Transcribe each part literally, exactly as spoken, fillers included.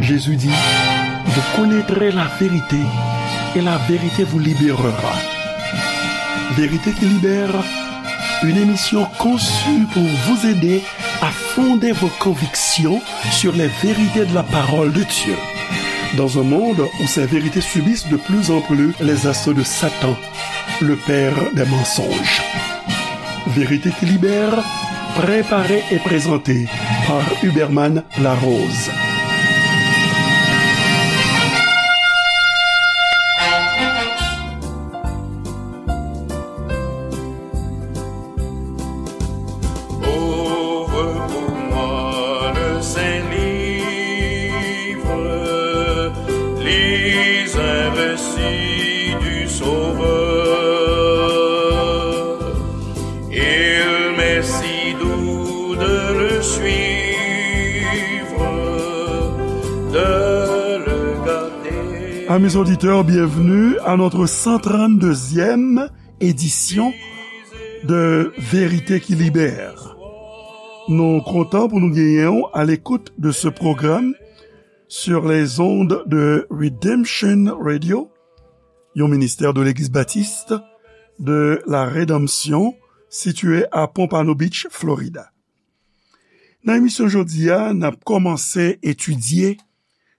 Jésus dit, vous connaîtrez la vérité et la vérité vous libérera. Vérité qui libère, une émission conçue pour vous aider à fonder vos convictions sur les vérités de la parole de Dieu. Dans un monde où ces vérités subissent de plus en plus les assauts de Satan, le père des mensonges. Vérité qui libère, préparée et présentée par Huberman Larose. Ouvre pour moi le Saint-Livre, lis un récit du Sauveur. Il m'est si doux de le suivre, de le garder. Amis auditeurs, bienvenue à notre cent trente-deuxième édition de Vérité qui Libère. Nou kontan pou nou genyen w à l'écoute de ce programme sur les ondes de Redemption Radio, yon ministè de Legliz Batis de la Redanmsyon, sitiye a Pompano Beach, Florida. Nan emisyon jodi a, n ap kòmanse etidye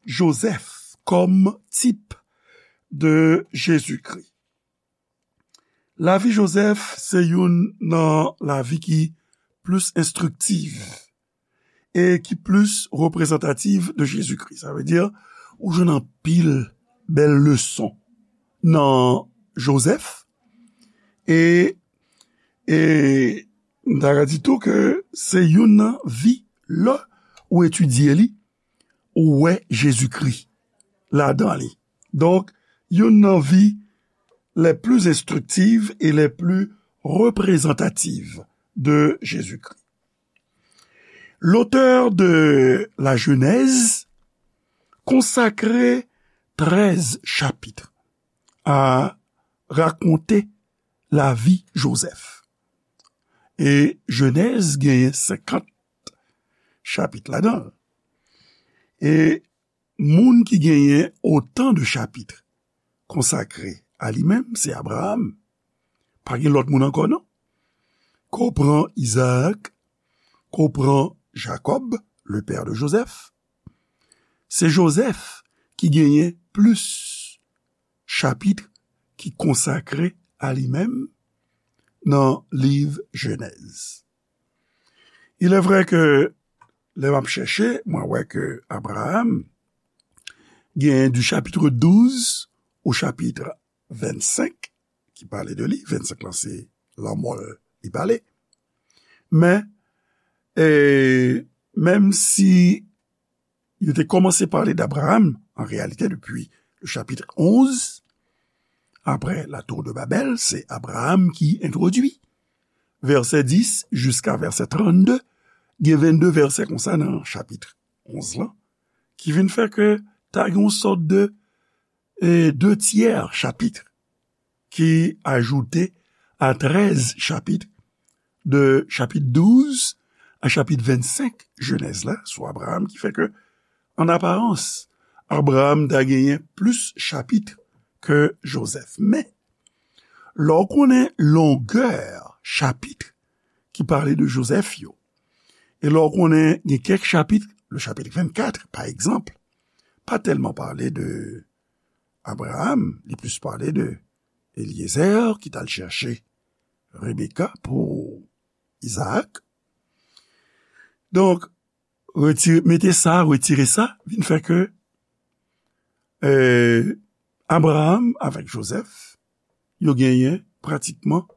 Jozèf kòm tip de Jezikri. Lavi Jozèf se youn nan lavi ki plis enstriktif e ki plis reprezantatif de Jezikri. Sa vle di, ou jwenn anpil bèl leson nan Jozèf. E, e m ta ka di tou ke se youn nan vi, lè ou etidye li, ou wè Jezikri ladan li. Donk, youn nan vi les plus instructives et les plus représentatives de Jésus-Christ. L'auteur de la Genèse consacre treize chapitres à raconter la vie Joseph. E Jenèz genyen senkant chapit ladan l. E moun ki genyen otan de chapit konsakre a li menm, se Abraram. Pa gen lòt moun ankò, non. Ke w pran Izaak, ke w pran Jakòb, le père de Joseph, se Jozèf ki genyen plis chapit ki konsakre a li menm nan liv Jenèz. Il est vrai que, lè m ap chèche, mwen wè ke Abraram gen du chapitre douze au chapitre vingt-cinq ki pale de li. Vennsenk lan se lanmò l li pale. Men, e, menm si yo te kòmanse pale d'Abraham, an reyalite, depi le chapitre onze, après la tour de Babel, se Abraham ki entwodui. Vèsè dis jiska vèsè trannde, gen vennde vèsè konsa nan chapit onz lan, ki vin fè ke ta gen yon sòt de, e, de tyè chapit ki ajoute a trèz chapit, de chapit douz a chapit vennsenk Jenèz la, sou Abraham, ki fè ke, an aparans, Abraham ta genyen plis chapit ke Jozèf. Men, lè w konnen longè chapit ki pale de Jozèf yo, e lè w konnen gen kèk chapit, le chapitre vingt-quatre, pa egzanp, pa tèlman pale de Abraham, li plis pale de Eliezer ki t al chèche Rebeka pou Izaak. Donk, retire, mete sa, retire sa, vin fè ke, e, Abraham avèk Jozèf, yo genyen pratikman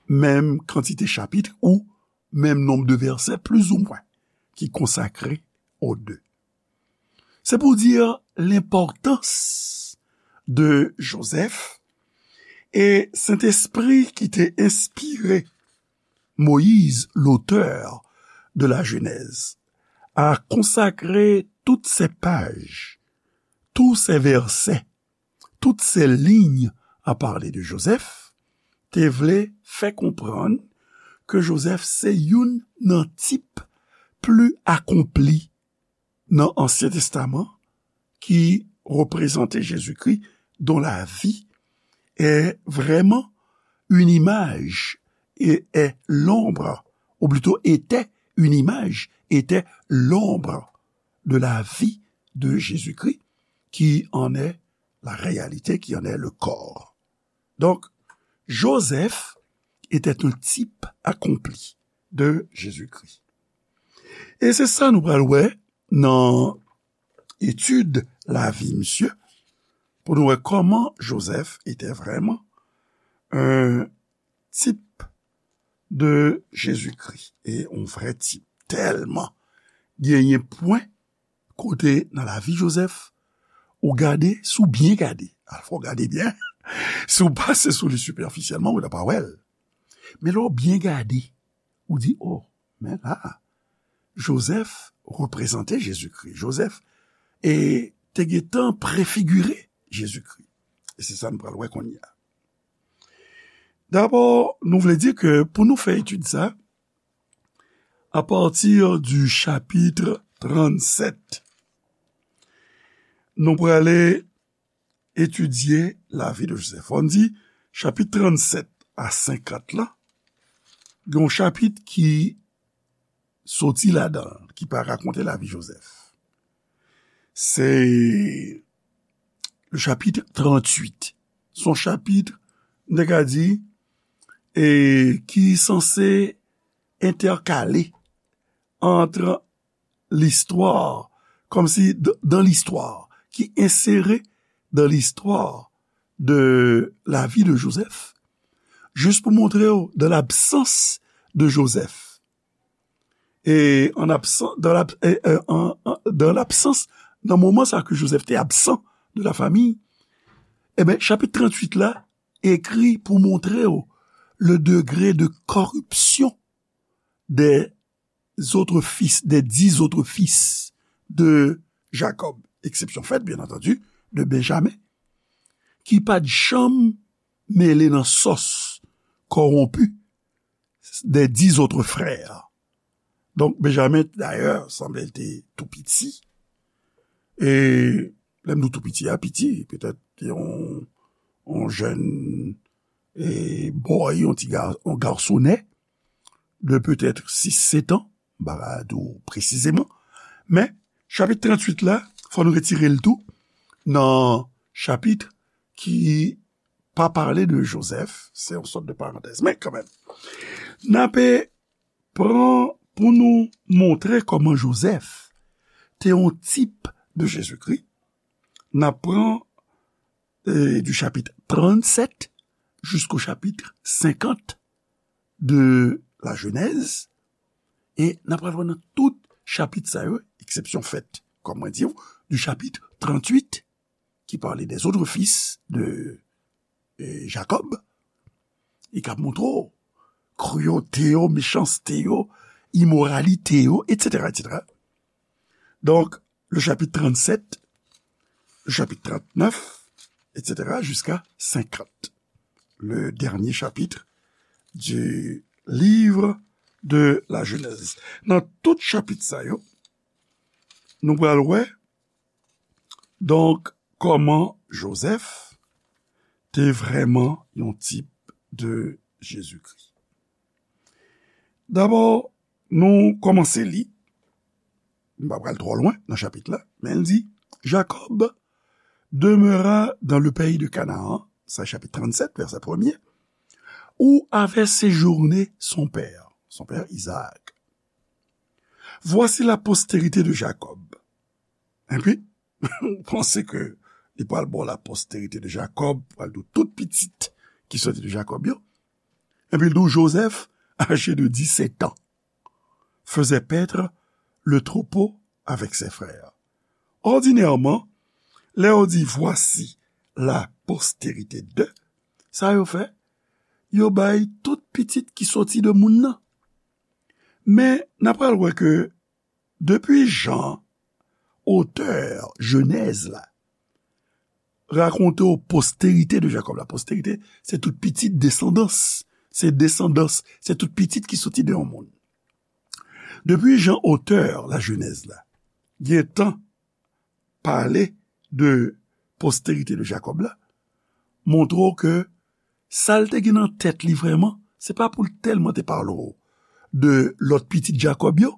menm kantite chapit ou menm nonb de vèsè, plizoumwen, ki konsakre o de. C'est pour dire l'importance de Joseph, e Sentespri ki te enspire Moïse, l'auteur de la Genèse, a consacré toutes ces pages, tous ces versets, toutes ces lignes à parler de Joseph, te vle fè konprann ke Jozèf se youn nan tip pli akonpli nan Ansyen Testaman qui représentait Jésus-Christ, dont la vie est vraiment une image et est l'ombre, ou plutôt était une image, était l'ombre de la vie de Jésus-Christ, qui en est la réalité, qui en est le corps. Donc, Joseph était un type accompli de Jésus-Christ. E se sa nou pral wè nan etid lavi misye, pou nou wè comment Joseph était vraiment un type de Jésus-Christ, e yon vrè tip. Tèlman genyen pwen kote nan lavi Joseph, ou gade, si w byen gade, al fò w gade byen, si w pase sou li sipèfisyèlman, ou ta pa wè l. Men lè w byen gade, ou di, oh, men la, Joseph reprezante Jezikri. Joseph e te gentan prefigire Jezikri. E se sa nou pral wè kounye a. Dabò, nou vle di ke pou nou fè etid sa, à partir du chapitre tranntsèt, nou prale etidye lavi de Joseph. Fò n di, chapit tranntsèt a senkant la, gen yon chapit ki soti ladan l, ki pa rakonte lavi Joseph. Se le chapitre tranntuit. Se yon chapit, m te ka di, e ki sanse entèkale ant listwa, kòmsi d-, dan listwa, ki ensere dan listwa de lavi de Joseph, jis pou montre w, dan labsans de Joseph, e an absan-, dan lab-, e, e, an, an, dan labsans, nan moman sa ke Joseph te absan de la famille, e ben, chapit tranntuit la ekri pou montre w le degré de corruption des autres fils, des dix autres fils de Jacob. Eksepsyon fèt, byen antandi, de Benjamin, ki pa t janm mele nan sòs kòwonpi des dix autres frères. Donk, Benjamin, dayè, sanble l te tou piti. E lè m di w tou piti a, piti, petèt yon, yon jèn, e, boy, yon ti ga-, yon gasonè de petèt sis, sèt an, m pa ka di w presizeman. Men, chapit tranntuit la, fò nou retire l tou nan chapit ki pa pale de Joseph, se yon sòt de parantèz. Men kanmenm, n ape pran pou nou montre kòman Joseph te yon tip de Jezikri. N ap pran, e, du chapitre tranntsèt jusqu'au chapitre cinquante de la Genèse, e n ap pral wè nan tout chapit sa yo, eksepsyon fèt, kòm mwen di w, du chapitre tranntuit, ki pale des autres fils de, e, Jacob, e k ap montre w kriyalite yo, mechanste yo, imoralite yo, et cetera, et cetera. Donk, le chapitre tranntsèt, le chapitre trannèf, et cetera, jusqu'à cinquante. Le dernier chapitre du livre de la Genèse. Nan tout chapit sa yo, nou pral wè, donk, kòman Joseph te vrèman yon tip de Jezikri. Dabò, nou kòmanse li. M pa pral twò lwen nan chapit la, men l di, Jacob demeura dans le pays de Canaan, sa chapit tranntsèt, vèsè premye, où avait séjourné son père, son père Isaac. Voici la postérité de Jacob. Epi, ou panse ke li pral ba w la postérité de Jacob, pral di w tout pitit ki soti de Jacob yo. Epi l di w, Joseph, âgé de dix-sept ans, faisait paître le troupeau avec ses frères. Ordinairement, lè yo di, voici la postérité de, sa yo fè, yo bay tout pitit ki soti de moun nan. Men, n ap pral wè ke depi jan otè Jenèz la rakonte w postérité de Jacob, la postérité, se tout pitit, desandans, se desandans, se tout pitit ki soti de yon moun. Depi jan otè la Jenèz la gentan pale de posterite de Jakòb la, montre w ke sa l te gen nan tèt li vrèman, se pa pou l tèlman te pale w de lòt pitit Jakòb yo.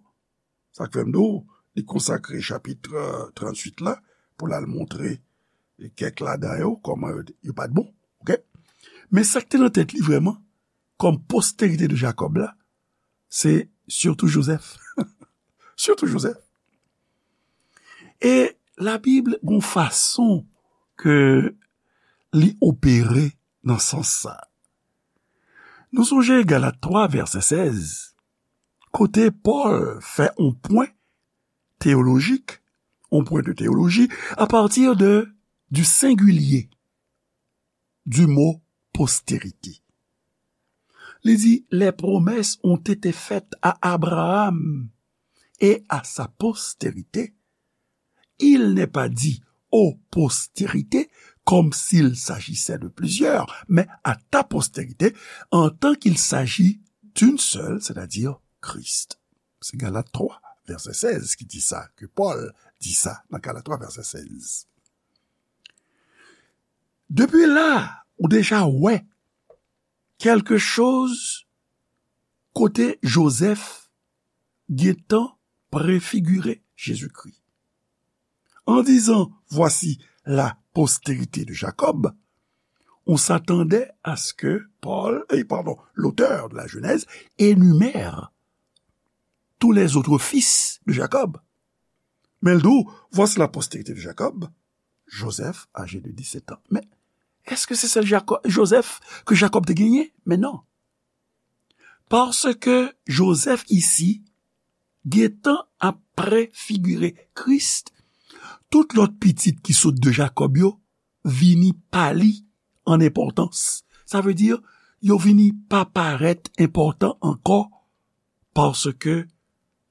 Sa k fè m di w, li konsakre chapit, euh, tranntuit la pou l al montre kèk ladan yo, kòman yo, yo pa t bon. Oke? Men sa k te nan tèt li vrèman, kòm posterite de Jakòb la, se sitou Jozèf. Sitou Jozèf. E Labib gon fason ke li opere nan sans sa. Nou sonje Galat twa, vèsè sèz, kote Pòl fè yon pwen teyolojik, yon pwen de teyoloji, a pati de, du sengilye du mo postérité. Li di, les promesses ont été faites à Abraham et à sa postérité. Il n'est pas dit aux postérités, comme s'il s'agissait de plusieurs, mais à ta postérité, en tant qu'il s'agit d'une seule, c'est-à-dire Christ. Se Galat twa, vèsè sèz ki di sa, ke Pòl di sa nan Galat twa, vèsè sèz. Depi la, ou deja wè kèlke choz kote Jozèf gentan prefigire Jezikri. En disant, voici la postérité de Jacob, on s'attendait à ce que Paul, eh, pardon, l'auteur de la Genèse énumère tous les autres fils de Jacob. Men l di w, voici la postérité de Jacob, Joseph, âgé de dix-sept ans. Men, èske se sèl Jako-, Jozèf ke Jakòb te genyen? Men non. Paske Jozèf isi, gentan ap prefigire Kris, tout lòt pitit ki sot de Jakòb yo vini pale an enpòtans. Sa vle di, yo vini pa parèt enpòtan ankò, paske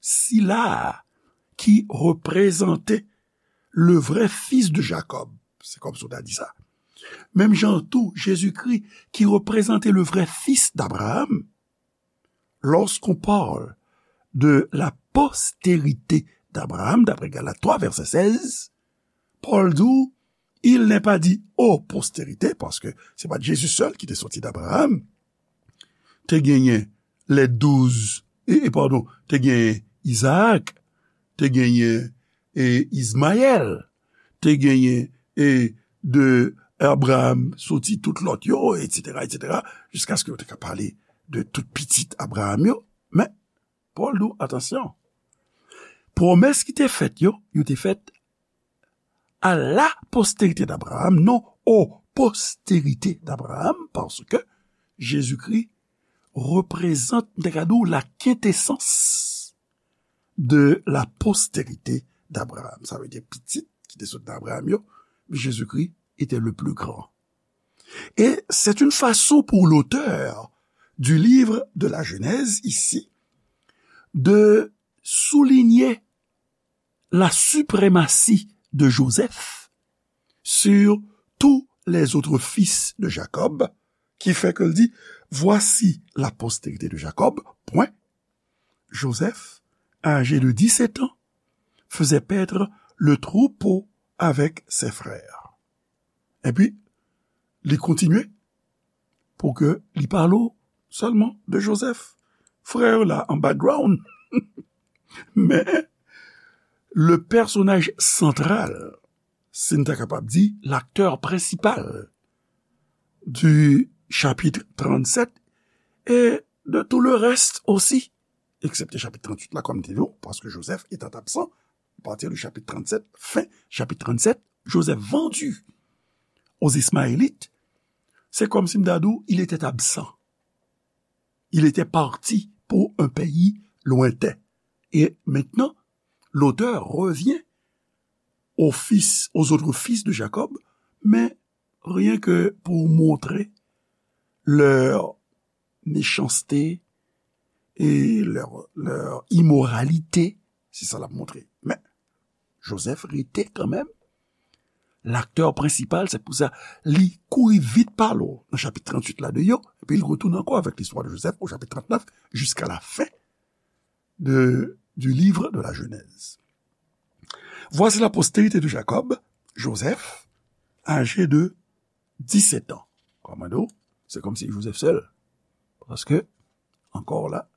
sila ki reprezante le vrai fils de Jacob, se kòmsi w ta di sa. Menm jan tou, Jezikri ki reprezante le vrai fils d'Abraham, lorsqu'on parle de la postérité d'Abraham, d'après Galates trois, verset seize, Pòl di w, il n'est pas dit aux postérités, paske se pa t Jezi sèl ki te soti d'Abraham. Te genyen les douze, e, e, padon, te genyen Izaak, te genyen, e, Izmayèl, te genyen, e, de Abraham soti tout lòt yo, etsetera, etsetera, jiskaske yo te ka pale de tout pitit Abraham yo. Men, Pòl di w, atansyon, pwomès ki te fèt yo, yo te fèt à la postérité d'Abraham, non aux postérités d'Abraham, paske Jezikri reprezante, m te ka di w, la quintessence de la postérité d'Abraham. Sa vle di pitit ki te sot nan Abraham yo, Jezikri était le plus grand. Et c'est une façon pour l'auteur du livre de la Genèse ici de souligner la suprématie de Joseph sur tous les autres fils de Jacob, qui fait que l di, voici la postérité de Jacob, point. Joseph, âgé de dix-sept ans, faisait paître le troupeau avec ses frères. Epi, li kontinye pou ke li pale w sèlman de Jozèf. Frè yo la an background. Men, le personnage central, si n ta kapab di, l'acteur principal du chapitre tranntsèt et de tout le reste aussi, eksepte chapit tranntuit la, kòm m te di w, paske Jozèf était absent à partir du chapitre tranntsèt, fin chapitre tranntsèt, Joseph vendu aux Ismaélites, c'est comme si m ta di w, il était absent. Il était parti pour un pays lointain. Et maintenant, l'auteur revient aux fils, aux autres fils de Jacob, mais rien que pour montrer leur méchanceté et leur, leur immoralité, se sa l ap montre. Men, Jozèf rete kanmenm laktè prensipal, se pou sa li kouri vit pale w nan chapit tranntuit la de yo, epi l retounen ankò avèk listwa de Jozèf o chapit trannèf, jusqu'à la fin de, du livre de la Genèse. Voici la postérité de Jacob, Joseph, âgé de dix-sept ans. Kòman nou, se kòmsi Joseph sèl. Paske, encore là,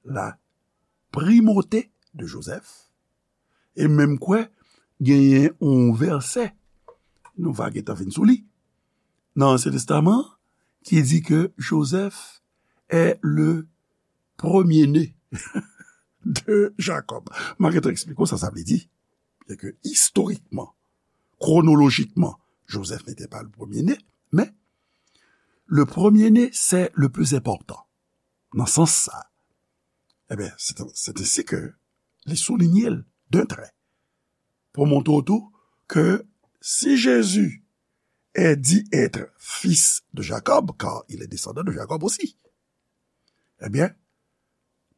la primauté de Joseph, e menm kwè, genyen yon vèsè, nou va gentan vin sou li, nan Ansyen Testaman, ki di ke Joseph est le premier-né de Jacob. M a gentan eksplike w sa sa vle di. Byen ke istorikman, chronologiquement, Joseph n'était pas le premier-né, mais le premier-né, c'est le plus important. Nan sans sa, ebyen, c'est, c'est ainsi que li souligne l d'un trait. Pou montre w tou ke si Jésus est dit être fils de Jacob, car il est descendant de Jacob aussi, ebyen,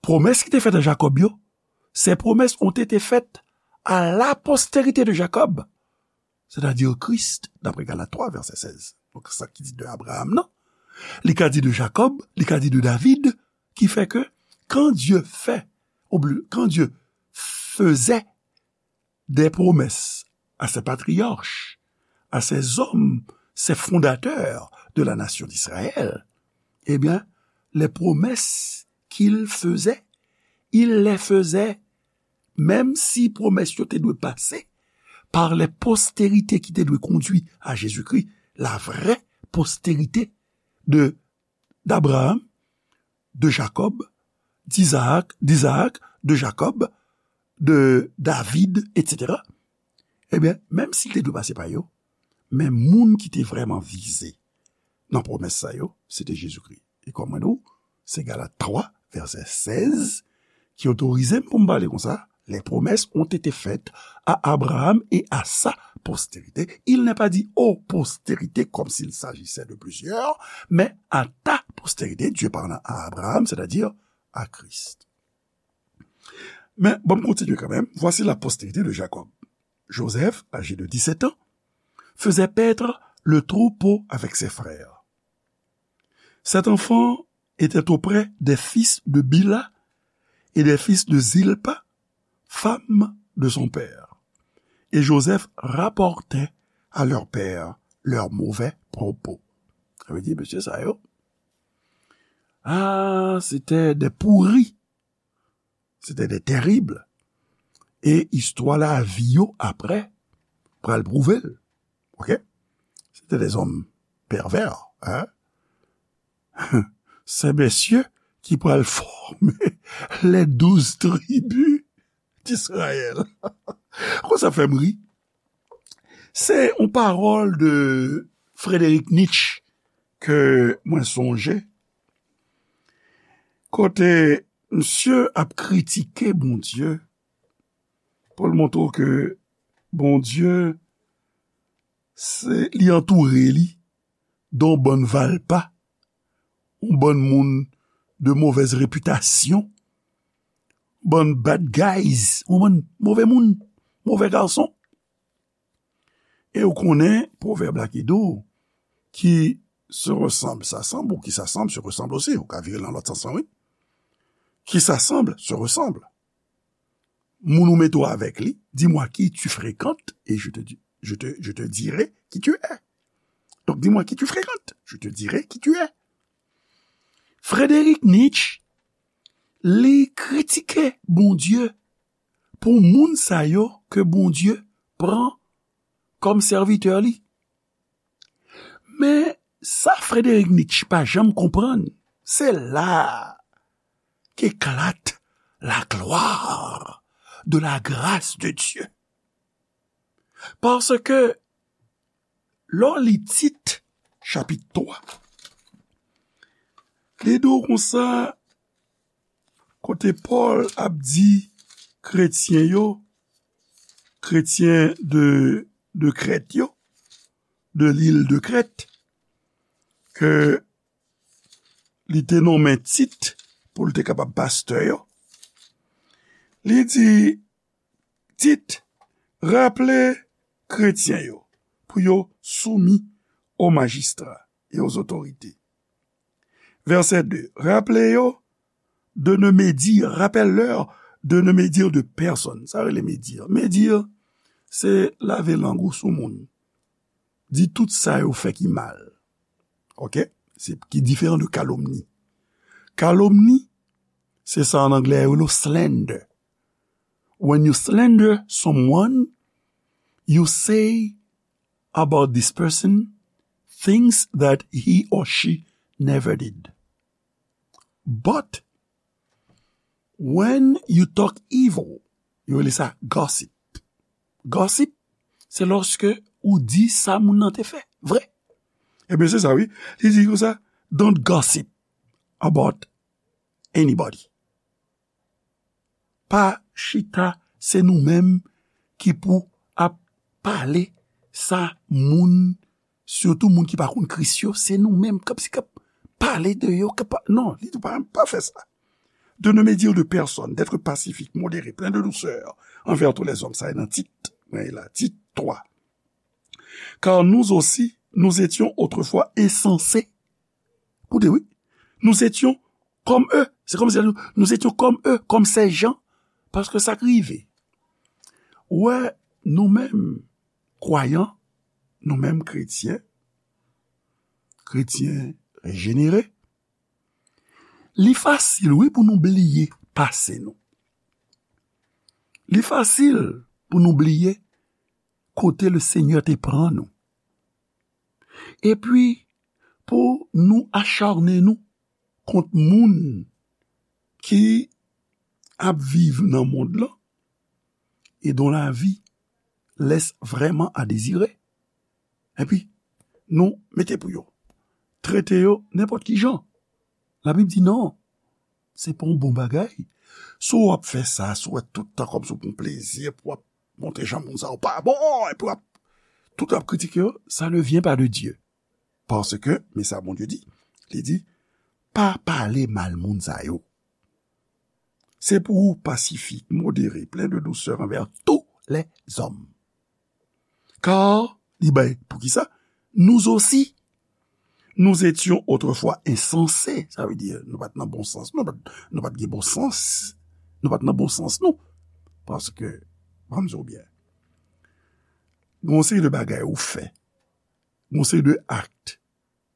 pwomès ki te fèt a Jakòb yo, ces promesses ont été faites à la postérité de Jacob, c'est-à-dire Christ, d'après Galates trois, verset seize. Donk, sa ki di de Abraham nan, li ka di de Jacob, li ka di de David, ki fè ke, quand Dieu fait, ou byen, quand Dieu faisait des promesses à ses patriarches, à ces hommes, ces fondateurs de la nation d'Israël, eh bien, les promesses qu'il faisait, il les faisait, menm si pwomès yo te dwe pase par les postérités ki te dwe kondui a Jezikri, la vraie postérité de, d'Abraham, de Jacob, d'Isaac, d'Isaac, de Jacob, de David, et cetera. Ebyen, menm si l te dwe pase pa yo, men moun ki te vrèman vize nan pwomès sa yo, se te Jezikri. E kòm mwen di w, se Galat twa, vèsè sèz, ki otorize m pou m pale konsa, les promesses ont été faites à Abraham et à sa postérité. Il n'est pas dit aux postérités comme s'il s'agissait de plusieurs, mais à ta postérité, Dieu parlant à Abraham, c'est-à-dire à Christ. Men, bon, m kontinye kanmenm. Voici la postérité de Jacob. Joseph, âgé de dix-sept ans, faisait paître le troupeau avec ses frères. Cet enfant était auprès des fils de Bila et des fils de Zilpa, femme de son père. Et Joseph rapportait à leur père leurs mauvais propos. Sa vle di, mesye sa yo, ah, c'était des pourris. C'était des terribles. E istwa lavi yo apre pral pwouve l. Ok? C'était des hommes pervers, hein? Ces messieurs qui pral former les douze tribus d'Israël. Konsa fè m ri. Se yon pawòl de Frederick Nietzsche ke mwen sonje. Kote misye ap kritike Bondye pou l montre w ke Bondye, se, li antoure li de yon bann valpa, yon bann moun de mauvaise réputation, bann bad guys, yon bann move moun, move gason. E ou konnen pwovèb la ki di w, qui se ressemble s'assemble, ou qui s'assemble se ressemble aussi. Ou ka vire l nan lòt sans lan, wi. Qui s'assemble se ressemble. Moun ou mete w avèk li, dis-moi qui tu fréquentes et je te, di- je te, je te dirai qui tu es. Donc, dis-moi qui tu fréquentes, je te dirai qui tu es. Frederick Nietzsche, li kritike Bondye pou moun sa yo ke Bondye pran kòm sèvitè li. Men sa Frederick Nietzsche pa janm konprann, se la qu'éclate la gloire de la grâce de Dieu. Paske lè w li Tit, chapit twa, li di w konsa, kote Pòl ap di kretyen yo, kretyen de, de Krèt yo, de lil de Krèt, ke li te nonmen Tit pou l te kapab pastè yo. Li di, Tit, raple kretyen yo pou yo soumi aux magistrats et aux autorités. Vèsè de, raple yo de ne médire, rappelle-leur de ne médire de personne. Sa rele médire. Médire, se lave lang ou sou moun. Di tout sa yo fè ki mal. Oke? Se ki diferan de kalomni. Kalomni, se sa an anglè yo rele slander. When you slander someone, you say about this person things that he or she never did. But when you talk evil, yo rele sa gossip. Gossip, se lòske ou di sa moun nan te fè. Vre. Ebyen, se sa, wi. Li di konsa, don't gossip about anybody. Pa chita, se nou menm ki pou ap pale sa moun, sitou moun ki pa konn Kris yo, se nou menm k ap, k ap pale de yo, k ap, non, li di pa, pa fè sa. De ne médire de personne, d'être pacifique, modéré, plein de douceur envers tous les hommes. Sa e nan Tit, mwen la, Tit twa. Car nous aussi, nous étions autrefois insensés. Koute, wi. Nous étions comme eux. C'est comme si nous, nous étions comme eux, comme ces gens. Paske sa k rive. Ou wè, nou menm, kwayan, nou menm kretyen, kretyen rejenere, li fasil, wi, pou nou bliye pase nou. Li fasil pou nou bliye kote le Senyè te pran nou. Epi, pou nou acharne nou kont moun ki ap viv nan mond lan, et dont la vie laisse vraiment à désirer. Epi, nou mete pou yo. Trete yo nenpòt ki jan. Labib di non. Se pa yon bon bagay. Si w ap fè sa, si w wè tout tan kòmsi w pran plezi, epi w ap montre jan moun sa yo pa bon, epi w ap tout ap kritike yo, ça ne vient pas de Dieu. Paske, men sa Bondye di, li di, pa pale mal moun sa yo. Se pou ou pasifik, modere, plen de dousè anvè tou lèzòm. Kar, li bay, poukisa? Nous aussi, nous étions autrefois insensés. Sa vle di, nou pa t nan bon sans, nou pa t, nou pa t gen bon sans, nou pa t nan bon sans nou. Paske, ban m di w byen, gen yon seri de bagay ou fè, gen yon seri de akt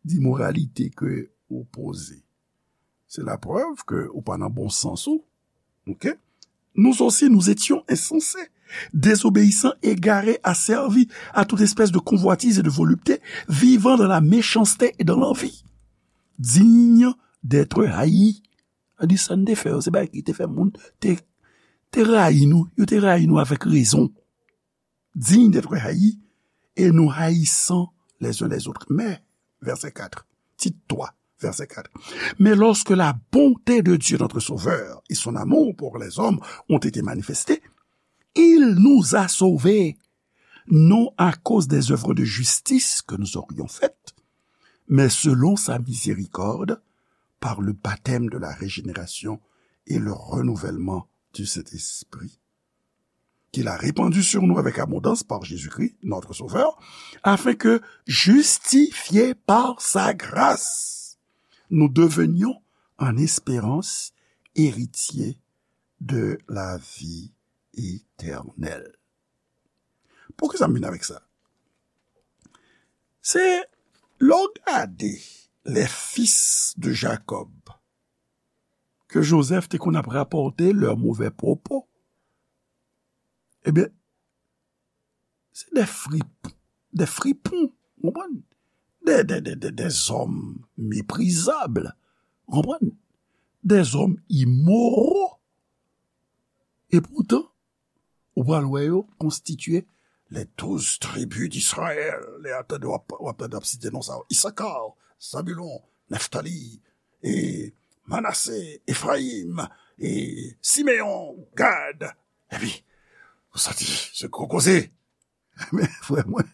d'imoralité ke ou poze. C'est la preuve que ou pa nan bon sans ou. Ok? Nous aussi, nous étions insensés, désobéissants, égarés, asservis à toute espèce de convoitise et de volupté, vivant dans la méchanceté et dans l'envie, dignes d'être haïs. Sa di sa n te fè yo, se bagay ki te fè moun te, te rayi nou, yo te rayi nou avèk rezon. Dignes d'être haïs et nous haïssant les uns les autres. Mais, verset quatre, Tite trois, verset quatre. Mais lorsque la bonté de Dieu, notre Sauveur, et son amour pour les hommes ont été manifestés, il nous a sauvés, non à cause des œuvres de justice que nous aurions faites, mais selon sa miséricorde, par le baptême de la régénération et le renouvellement du Saint-Esprit, qu'il a répandu sur nous avec abondance par Jésus-Christ, notre Sauveur, afin que, justifiés par sa grâce, nous devenions en espérance héritiers de la vie éternelle. Poukisa m vin avèk sa? Se lè w gade les fils de Jacob, ke Jozèf te konn ap rapòte leurs mauvais propos, ebyen, se de frip, de fripon, w konprann? De, de, de, de, des hommes méprisables, w konprann? Des hommes immoraux. E poutan, ou pral wè yo konstitye les douze tribus d'Israël. Lè w ap tande, w ap, w ap tande, w ap site non sa yo. Isakar, Zabulon, Neftali, e Manase, Efrayim, e Simeyon, Gad. Epi, ou santi, se gwo koze. Men, frè mwen,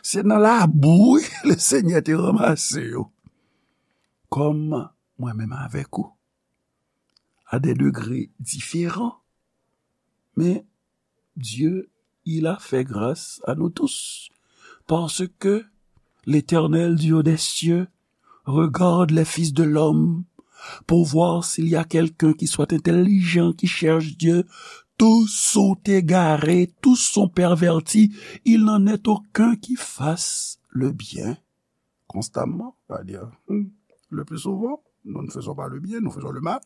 se nan labou, wi, le Senyè te ranmase yo. Kòm mwen menm avèk ou, à des degrés différents. Mais Dieu, il a fait grâce à nous tous. Parce que l'Éternel, Dieu des cieux, regarde les fils de l'homme pour voir s'il y a quelqu'un qui soit intelligent, qui cherche Dieu. Tous sont égarés, tous sont pervertis, il n'en est aucun qui fasse le bien. Constamment, c'est-à-dire, hmm, le plus souvent, nous ne faisons pas le bien, nous faisons le mal.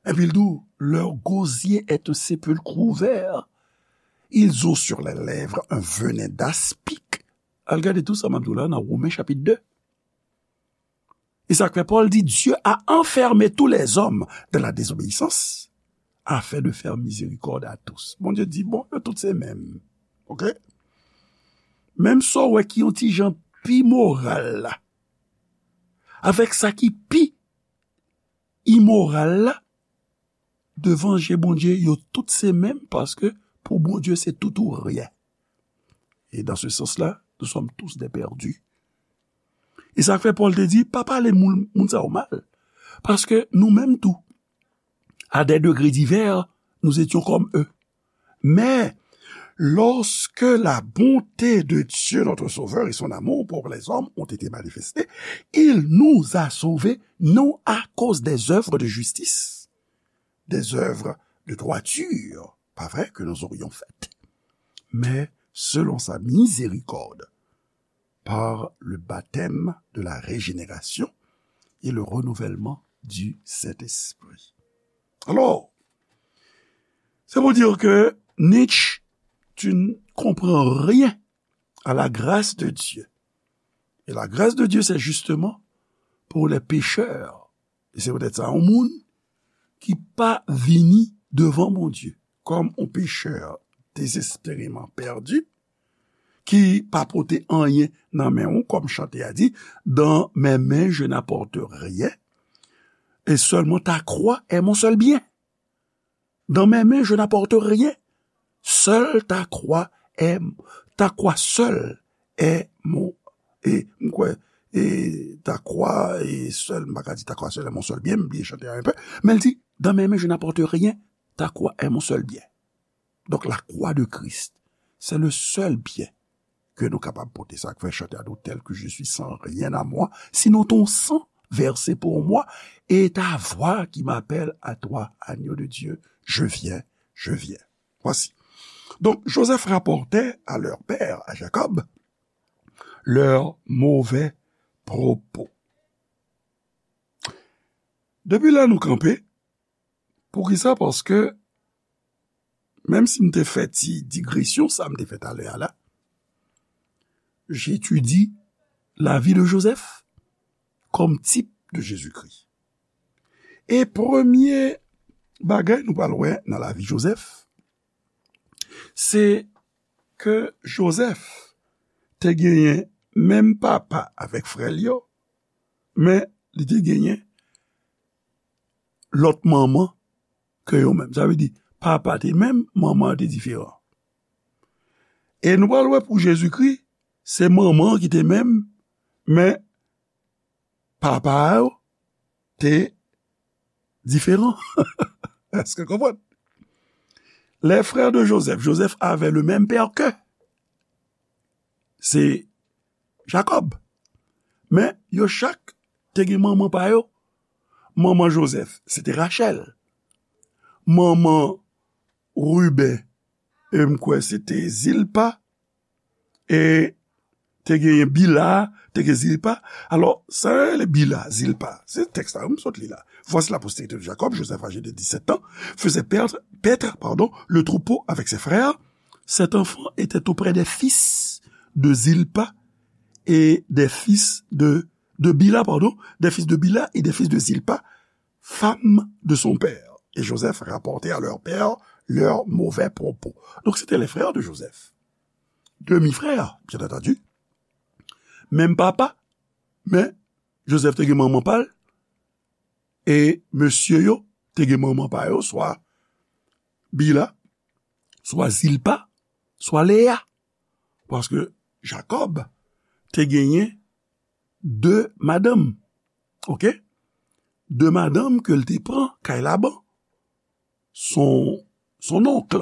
Epi l di w, leur gosier est un sépulcre ouvert. Ils ont sur les lèvres un venin d'aspic. Al gade tou sa m ap di w la nan Women chapit de. E sa k fè Pòl di, Dieu a enfermé tous les hommes dans la désobéissance, afin de faire miséricorde à tous. Bondye di, bon, yo tout se menm. Oke? Menm sa w wè ki yon ti jan pi moral la, avèk sa ki pi imoral la, devan je Bondye, yo tout se menm, paske pou Bondye, se tout ou ryen. Et dans ce sens-là, nous sommes tous des perdus. E sa k fè Pòl te di, pa pale moun, moun sa yo mal. Paske nou menm tou, à des degrés divers, nous étions comme eux. Mais lorsque la bonté de Dieu, notre Sauveur, et son amour pour les hommes ont été manifestés, il nous a sauvés, non à cause des œuvres de justice, des œuvres de droiture, pas vrai, que nous aurions faites, mais selon sa miséricorde, par le baptême de la régénération et le renouvellement du Saint-Esprit. Alors, c'est pour dire que Nietzsche, tu ne comprends rien à la grâce de Dieu. Et la grâce de Dieu, c'est justement pour les pécheurs. E se poutèt sa, yon moun ki pa vini devan Bondye kòm yon pechè dezespèreman pèdi, ki pa pote anyen nan men w, kòm chante a di, dans mes mains je n'apporte rien, et seulement ta croix est mon seul bien. Dans mes mains je n'apporte rien, seul ta croix est, ta croix seule est mon, e m kwè, e ta croix est seule, m pa ka di ta croix seule est mon seul bien, m bliye chante a un peu, men l di, dans mes mains je n'apporte rien, ta croix est mon seul bien. Donc la croix de Christ, c'est le seul bien ke nou kapab pote. Sa k fè chante a di w, tel que je suis sans rien à moi, sinon ton sang versé pour moi et ta voix qui m'appelle à toi, agneau de Dieu, je viens, je viens. Voici. Donc, Joseph rapportait à leur père, à Jacob, leurs mauvais propos. Depi la nou kanpe, poukisa? Paske, menm si m te fè ti digresyon, sa m te fè talè a la, j'étudie la vie de Joseph comme type de Jésus-Christ. E premye bagay nou pral wè nan lavi Joseph, se ke Joseph te genyen menm papa avèk frè l yo, men li te genyen lòt manman ke yo menm. Sa vle di, papa te menm, manman an te diferan. E nou pral wè pou Jezikri, se manman an ki te menm, men papa a yo te diferan. Èske w konprann? Les frères de Joseph, Joseph avait le même père que, se Jacob. Men yo chak te gen manman pa yo. Manman Joseph, se te Rachel. Manman Ruben, e m kwè se te Zilpa. E te genyen Bila, te gen Zilpa. Alò, sa yo rele Bila, Zilpa, se tèks la, m sot li la. Voici la postérité de Jacob, Joseph âgé de dix-sept ans, faisait perdre, paître, pardon, le troupeau avec ses frères. Cet enfant était auprès des fils de Zilpa et des fils de, de Bila, pardon, des fils de Bila et des fils de Zilpa, femme de son père. Et Joseph rapportait à leur père leurs mauvais propos. Donc, c'était les frères de Joseph. Demi-frères, bien entendu. Menm papa, men Joseph te gen manman pa l, e mesye yo te gen manman pa yo, swa Bila, swa Zilpa, swa Leya. Paske Jacob te genyen de madanm. Oke? De madanm ke l te pran kay Laban, son, son onk.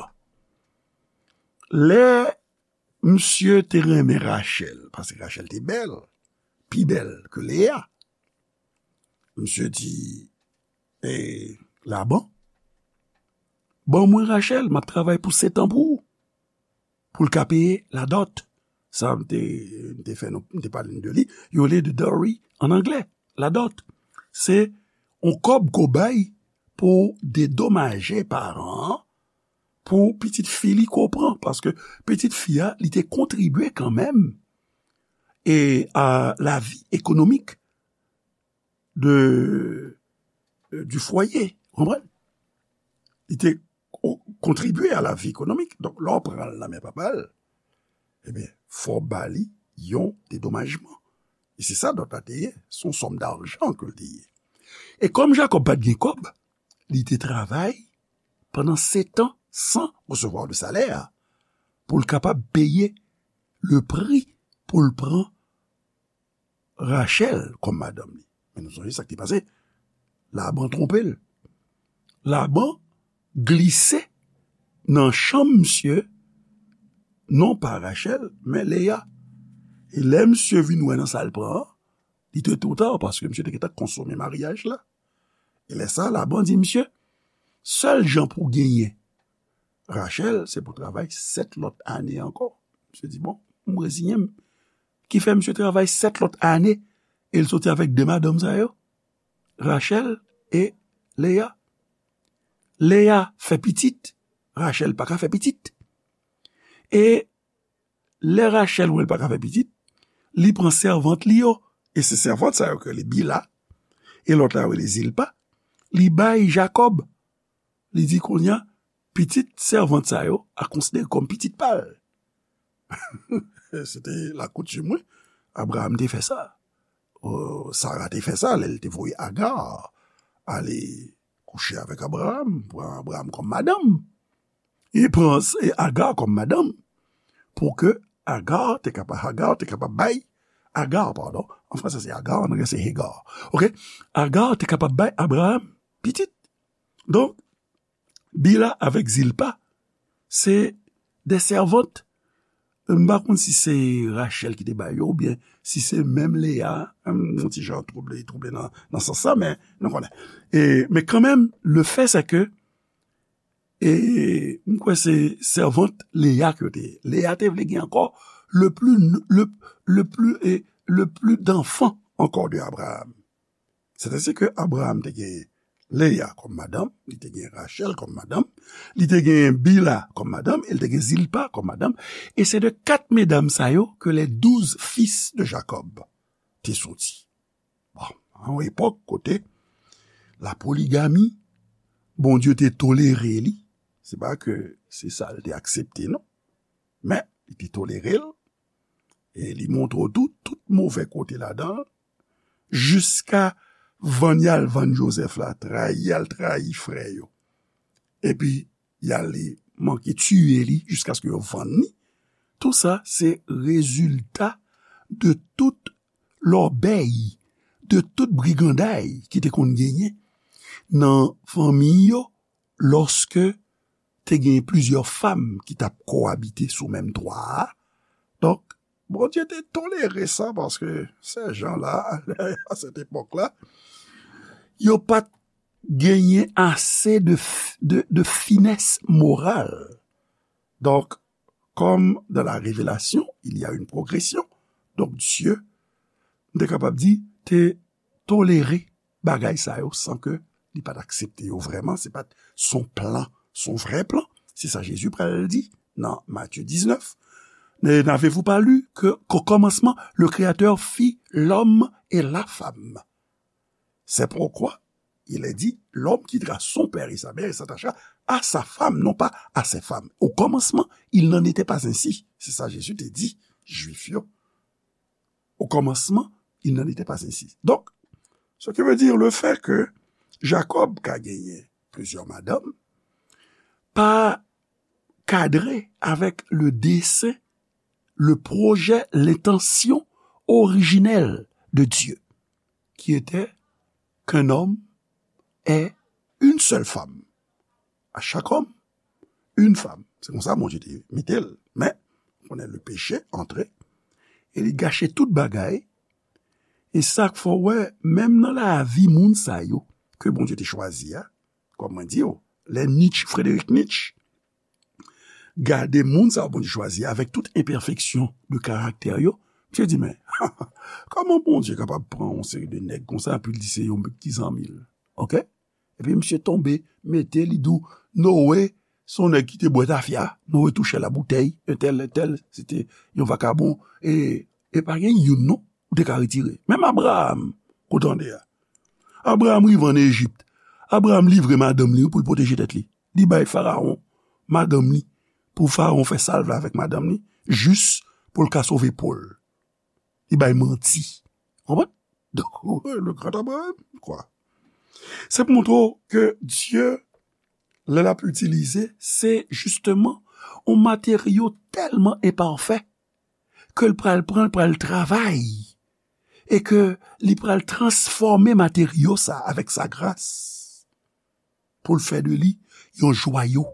Lè misye te renmen Rachel, paske Rachel te bèl, pi bèl ke Leya, misye di, e, Laban, Ban mwen Rachel, m ap travay pou sèt an pou ou. Pou l ka peye ladòt. Sa, m te, m te fè nou, m te pale de li. Yo rele de dowry an anglè, ladòt. Se yon kòb ke w bay pou w dedomaje paran an, pou pitit fi li ke w pran. Paske pitit fi a, li te kontribye kanmenm e a lavi ekonomik de, euh, du foyer. Ou konprann? Li te ko-, kontribye a lavi ekonomik. Donk, lè w pran l nan men papa l, ebyen, fò w ba li yon dedomajman. E se sa dòt la te ye. Se yon sòm dajan ke l te ye. E kòm Jakòb pa t gen kòb, li te travay pandan sèt an san resevwa de salè, pou l kapab peye le pri pou l pran Rachel kòm madanm li. Men nou sonje sa k te pase. Laban twonpe l. Laban glise nan chanm misye, non pa Rachel, men Leya. E lè misye vin wè nan sa l pran an, li te twò ta, paske misye te gentan konsome maryaj la. E lè sa, Laban di misye, sèl jan pou w genyen Rachel, se pou w travay sèt lòt ane ankò. Misye di, bon, m reziyen m. Ki fè misye travay sèt lòt ane, e l soti avèk de madanm sa yo, Rachel e Leya. Leya fè pitit, Rachel pa ka fè pitit. E lè Rachel wè l pa ka fè pitit, li pran sèvant li yo, e se sèvant sa yo ke li Bila, e lòt la yo rele Zilpa, li bay Jakòb. Li di kounye a, pitit sèvant sa yo a konsidere kòm pitit pa l. Se te lakoutim, wi. Abraham te fè sa. Euh, Sara te fè sa, lè l te voye Agar ale kouche avèk Abraham, pran Abraham kòm madanm. Li pran s-, e Agar kòm madanm pou ke Agar te kapab, Hagar te kapab bay, Agar, padon, an fransè se Agar, an anglè se Hagar. Oke? Agar te kapab bay Abraham pitit. Donk, Bila avèk Zilpa, se de sèvant. M pa konn si se Rachel ki te ba yo, oubyen si se menm Leya, m yon ti jan twouble, twouble nan, nan sans sa, men nou konnen. E, men kanmenm, le fè se ke, e, m kwè se sèvant Leya ke yo te ye. Leya te vle gen ankò le plus, le, le plus, e, le plus d'enfants encore de Abraham. Sètadi ke Abraham te gen Leya kòm madanm, li te gen Rachel kòm madanm, li te gen Bila kòm madanm, e li te gen Zilpa kòm madanm. E se de kat medam sa yo ke les douze fils de Jacob te soti. Bon, an yon epòk kote la poligami, Bondye te tolere li, se pa ke se sa l te aksepte, non. Men, li te tolere l, e li montre w tou, tout move kote ladan l, jiska vann y al vann Jozèf la, trayi y al trayi frè yo. Epi, y ale manke tiye li jiskaske yo vann li. Tou sa, se rezilta de tout lòbèy, de tout briganday ki te konn genyen nan fanmi yo, lòske te gen plizyè fanm ki t ap kowabite sou menm twa a. Donk, Bondye te tolere sa paske sèjan la, a sèt epòk la, yo pa t genyen ase de, f- de, de finès moral. Donc, comme dans la révélation, il y a une progression, donc Dieu, m te kapab di, te tolere bagay sa yo san ke li pa t aksepte yo vrèman, se pa t son plan, son vrè plan. Se sa Jezi pral di nan Matye diznèf. Ne- N'avez-vous pas lu que, qu'au commencement, le Créateur fit l'homme et la femme? C'est pourquoi il est dit, l'homme quittera son père et sa mère et s'attachera à sa femme, non pas à ses femmes. Au commencement, il n'en était pas ainsi. Se sa Jezi te di Jwif yo. Au commencement, il n'en était pas ainsi. Donc, ce qui veut dire le fait que Jacob ka genyen plizyè madanm, pa kadre avec le dessein, le projet, l'intention originelle de Dieu, qui était qu'un homme ait une seule femme. À chaque homme, une femme. Se konsa Bondye te mete l. Men, konnen le péché antre, e li gache tout bagay. E sa k fè w wè, menm nan lavi moun sa yo, ke Bondye te chwazi a, kòm mwen di w, lè Nietzsche, Frederick Nietzsche, gade moun sa Bondye chwazi avèk tout enpèfeksyon de karaktè yo, misye di, men, kòman Bondye kapab pran yon seri de nèg konsa, epi l di se yon ti zanmi l? Oke? Epi misye tonbe, mete li dou, Noe, se yon nèg ki te bwè tafya, Noe touche la boutèy, entèl, entèl, se te yon vakabon, e, e pa gen youn non, ou te ka retire. Menm Abraham, ou tande a. Abraham rive ann Ejip. Abraham livre madanm li pou l pwoteje tèt li. Li bay Farawon madanm li, pou Farawon fè sa l vle avèk madanm li, jis pou l ka sove po l. Li bay manti. Konprann? Donk, le grand Abraham, kwa. Se pou montre w ke Dye, lè l ap itilize, se jisteman yon materyo tèlman enpafè ke l pral pran, l pral travay, e ke li pral transfòme materyo sa avèk sa gras pou l fè de li yon jwayo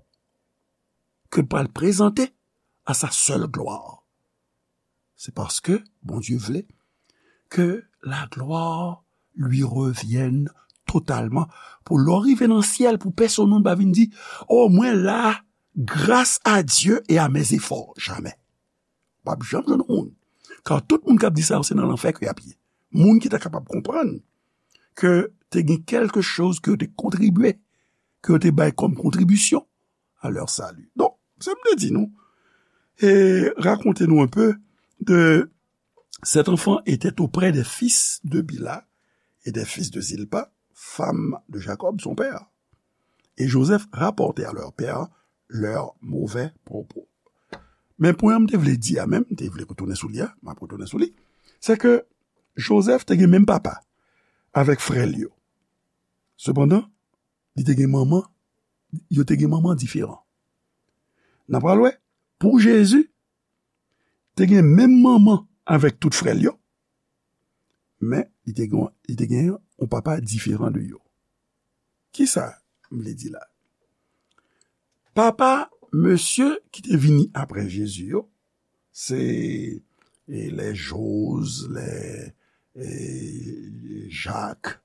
ke l pral prezante a sa sèl glwa. Se paske Bondye vle ke la gloire lui revienne totalman. Pou lè w rive nan syèl, pou pèsonn moun pa vin di, o, mwen la gras a Dye e a mes efò. Jamè. P ap janm jwenn yon moun. Ka tout moun k ap di sa yo, se nan lanfè ke y ap ye. Moun ki ta kapab konprann ke te gen kèlke choz ke yo te kontribye, ke yo te bay kòm kontribisyon a lè sali. Donk, sa m te di nou, e rakonte nou un peu de cet enfant était auprès des fils de Bila et des fils de Zilpa, femme de Jacob, son père. Et Joseph rapportait à leur père leurs mauvais propos. Men pwen an m te vle di a menm, m te vle retounen sou li a, m ap retounen sou li, se ke Joseph te gen menm papa avèk frè l yo. Sepandan, li te gen manman, yo te gen manman diferan. N a pral wè, pou Jezi, te gen menm manman avèk tout frè l yo, men li te gen, li te gen yon papa diferan de yo. Kisa m vle di la? Papa mesye ki te vini apre Jezi yo, se, e, lè Joz, lè, e, Jak,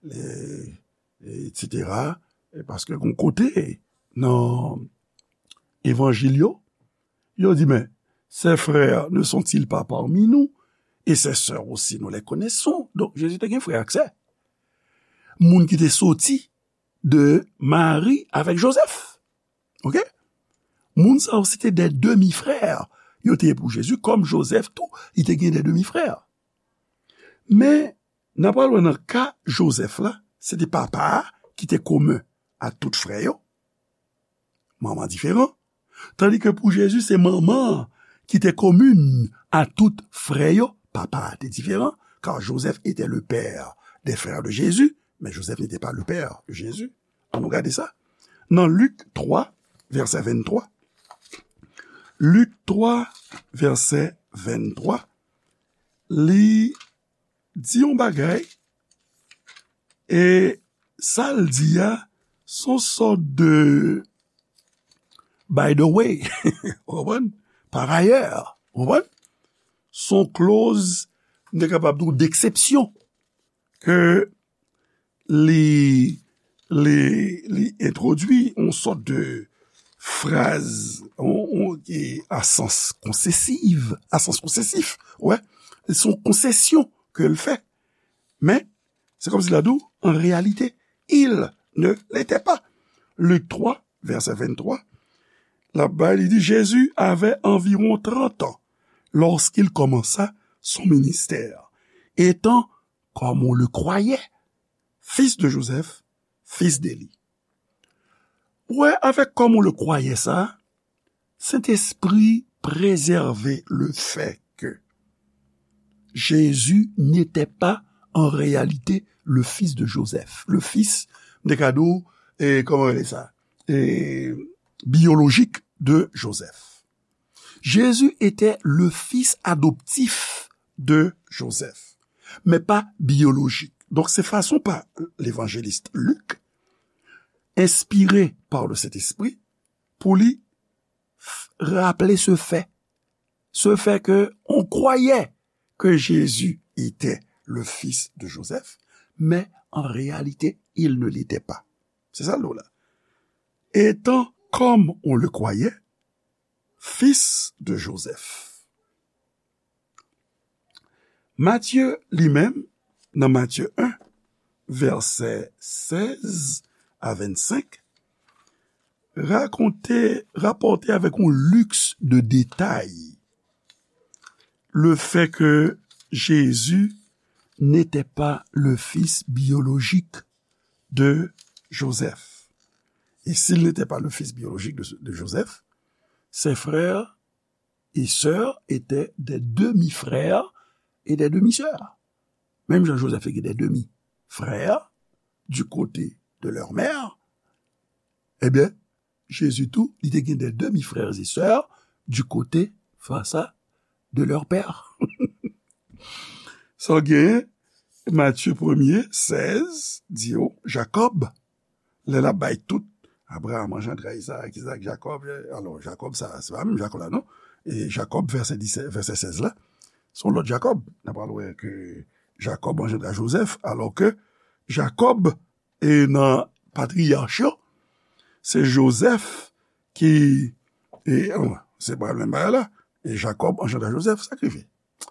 lè, etsetera. E paske gon kote nan evanjil yo, yo di, men, ces frères ne sont-ils pas parmi nous? Et ces sœurs aussi, nous les connaissons. Donk, Jezi te gen frè ak sè. Moun ki te soti de Mari avèk Jozèf. Oke? Moun sa yo, se te de demi frè. Yo te ye pou Jezi, kòm Jozèf tou, li te gen de demi frè. Men, n a pral wè nan ka Jozèf la, se te papa a ki te komen a tout frè yo. Manman diferan. Tandis que pou Jezi, se manman an ki te komen a tout frè yo. Papa a te diferan, car Joseph était le père des frères de Jésus, mais Joseph n'était pas le père de Jésus. Ann nou gade sa. Nan Lik twa, vèsè venntwa. Lik twa, vèsè venntwa. Li di yon bagay, e sa l di a, se yon sòt de by the way, ou konprann? Par ailleurs, ou konprann? Se yon clause, m te kapab di w, d'exception, ke li, li, li entwodui yon sòt de fraz, yon, yon, e a sans konsesif, a sans konsesif, wè, se yon konsesyon ke l fè. Men, se kòmsi l ap di w, en réalité, il ne l'était pas. Lik twa, vèsè venntwa, l ap bay, li di, Jésus avait environ trente ans lorsqu'il commença son ministère, étant, comme on le croyait, fils de Joseph, fils d'Élie. Ou wè, avèk comme on le croyait sa, Sentespri prezève le fait que Jésus n'était pas en réalité le fils de Joseph. Le fils, m te ka di w, e, kòman rele sa? E, biyolojik de Joseph. Jésus était le fils adoptif de Joseph, mais pas biologique. Donk, se fason pa levanjelis Lik, enspire pa le Sentespri, pou li f-, raple se fè. Se fè ke on croyait que Jésus était le fils de Joseph, mais en réalité, il ne l'était pas. Se sa l di w la. étant, comme on le croyait, fils de Joseph. Matye li menm, nan Matye en, vèsè sèz a vennsenk, rakonte, rapòte avèk yon liks de detay le fait que Jésus n'était pas le fils biologique de Joseph. Et s'il n'était pas le fils biologique de, de Joseph, ses frères et sœurs étaient des demi-frères et des demi-sœurs. Menm jan Joseph te gen des demi-frères du côté de leur mère, ebyen, Jezi tou, li te gen des demi-frères et sœurs du côté, face à, de leur père. Sa w genyen, Matye premye, sèz, di yo, Jakòb, lè l ap bay tout, Abraram anjandra Izaak, Izaak, Jakòb, alò, Jakòb sa, se pa menm Jakòb la, non? E Jakòb, vèsè disèt, vèsè sèz la, se yon lòt Jakòb. N a pral wè ke Jakòb anjandra Jozèf, alò ke Jakòb, e nan patriyach yo, se Jozèf ki, e, se pa menm bagay la, e Jakòb anjandra Jozèf, sa k rive?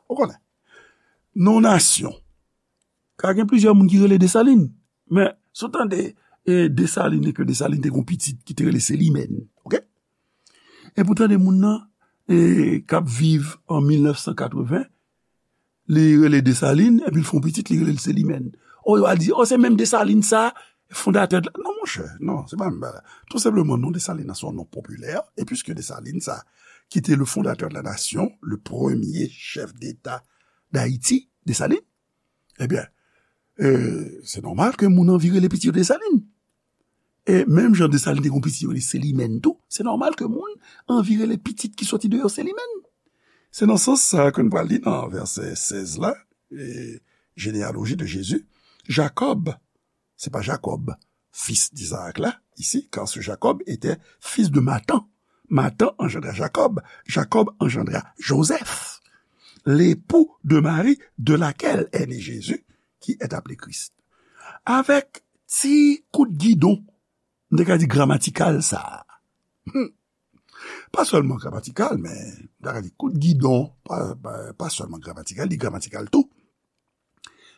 Ou konnen. Nan yon nasyon, ka gen plizyè moun ki rele Desalin, men si w tande, e, Desalin, e ke Desalin te gen yon pitit ki te rele Selimèn, oke? Epi w tande moun nan, e, k ap viv an mil nèf san katreven, li rele Desalin, epi l fè yon pitit, li rele l Selimèn. O, yo a di, o, se menm Desalin sa, fondatè de la, non, monchè, non, se pa menm bagay. Tou senpleman, non Desalin nan se yon non popilè, e piske Desalin sa, ki te le fondateur de la nation, le premier chef d'État d'Haïti, Desalin, ebyen, e, se nòmal ke moun anvi rele pitit yo Desalin. E menm jan Desalin te gen yon pitit yo rele Selimèn tou, se nòmal ke moun anvi rele pitit ki soti de yo Selimèn. Se nan sans sa ke n pral li nan vèsè sèz la, e, généalogie de Jésus, Jakòb, se pa Jakòb, fils d'Isaac la, ici, car ce Jacob était fils de Matan. Matan anjandra Jakòb, Jakòb anjandra Jozèf, l'époux de Marie de laquelle est né Jésus, qui est appelé Christ. Avèk ti kout gidon, m te ka di gramatikal sa a. Hmm. Pa sèlman gramatikal, men m te ka di kout gidon, pa, pa, pa sèlman gramatikal, li gramatikal tou.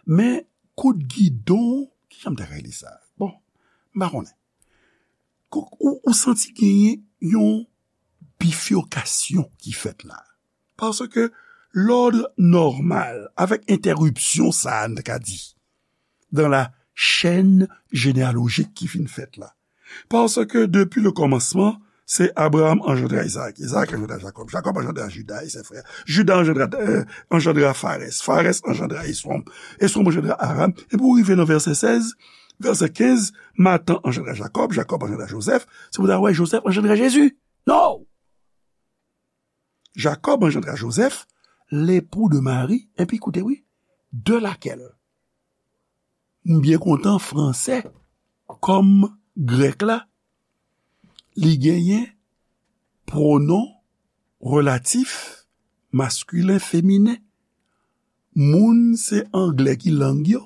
Men kout gidon, kijan m ta rele sa? Bon, m pa konnen. Kou-, ou, ou santi genyen yon bifurkasyon ki fèt la. Paske lòd nòmal, avèk entèripsyon sa a, n ta ka di, dans la chaîne généalogique ki fin fèt la. Paske depi le kòmansman, se Abraram anjandra Izaak, Izaak anjandra Jakòb, Jakòb anjandra Jida e sè frè, Jida anjandra, euh, anjandra Farès, Farès anjandra Eswòm, Eswòm anjandra Aram, epi w rive nan vèsè sèz, vèsè kenz, Matan anjandra Jakòb, Jakòb anjandra Jozèf, se pou w ta wè Jozèf anjandra Jezi. Non! Jakòb anjandra Jozèf, l'époux de Marie, epi koute wi, de laquelle. M byen kontan fransè, kòm grèk la, li genyen pwonon relatif maskilen, feminen. Moun se anglè ki lang yo.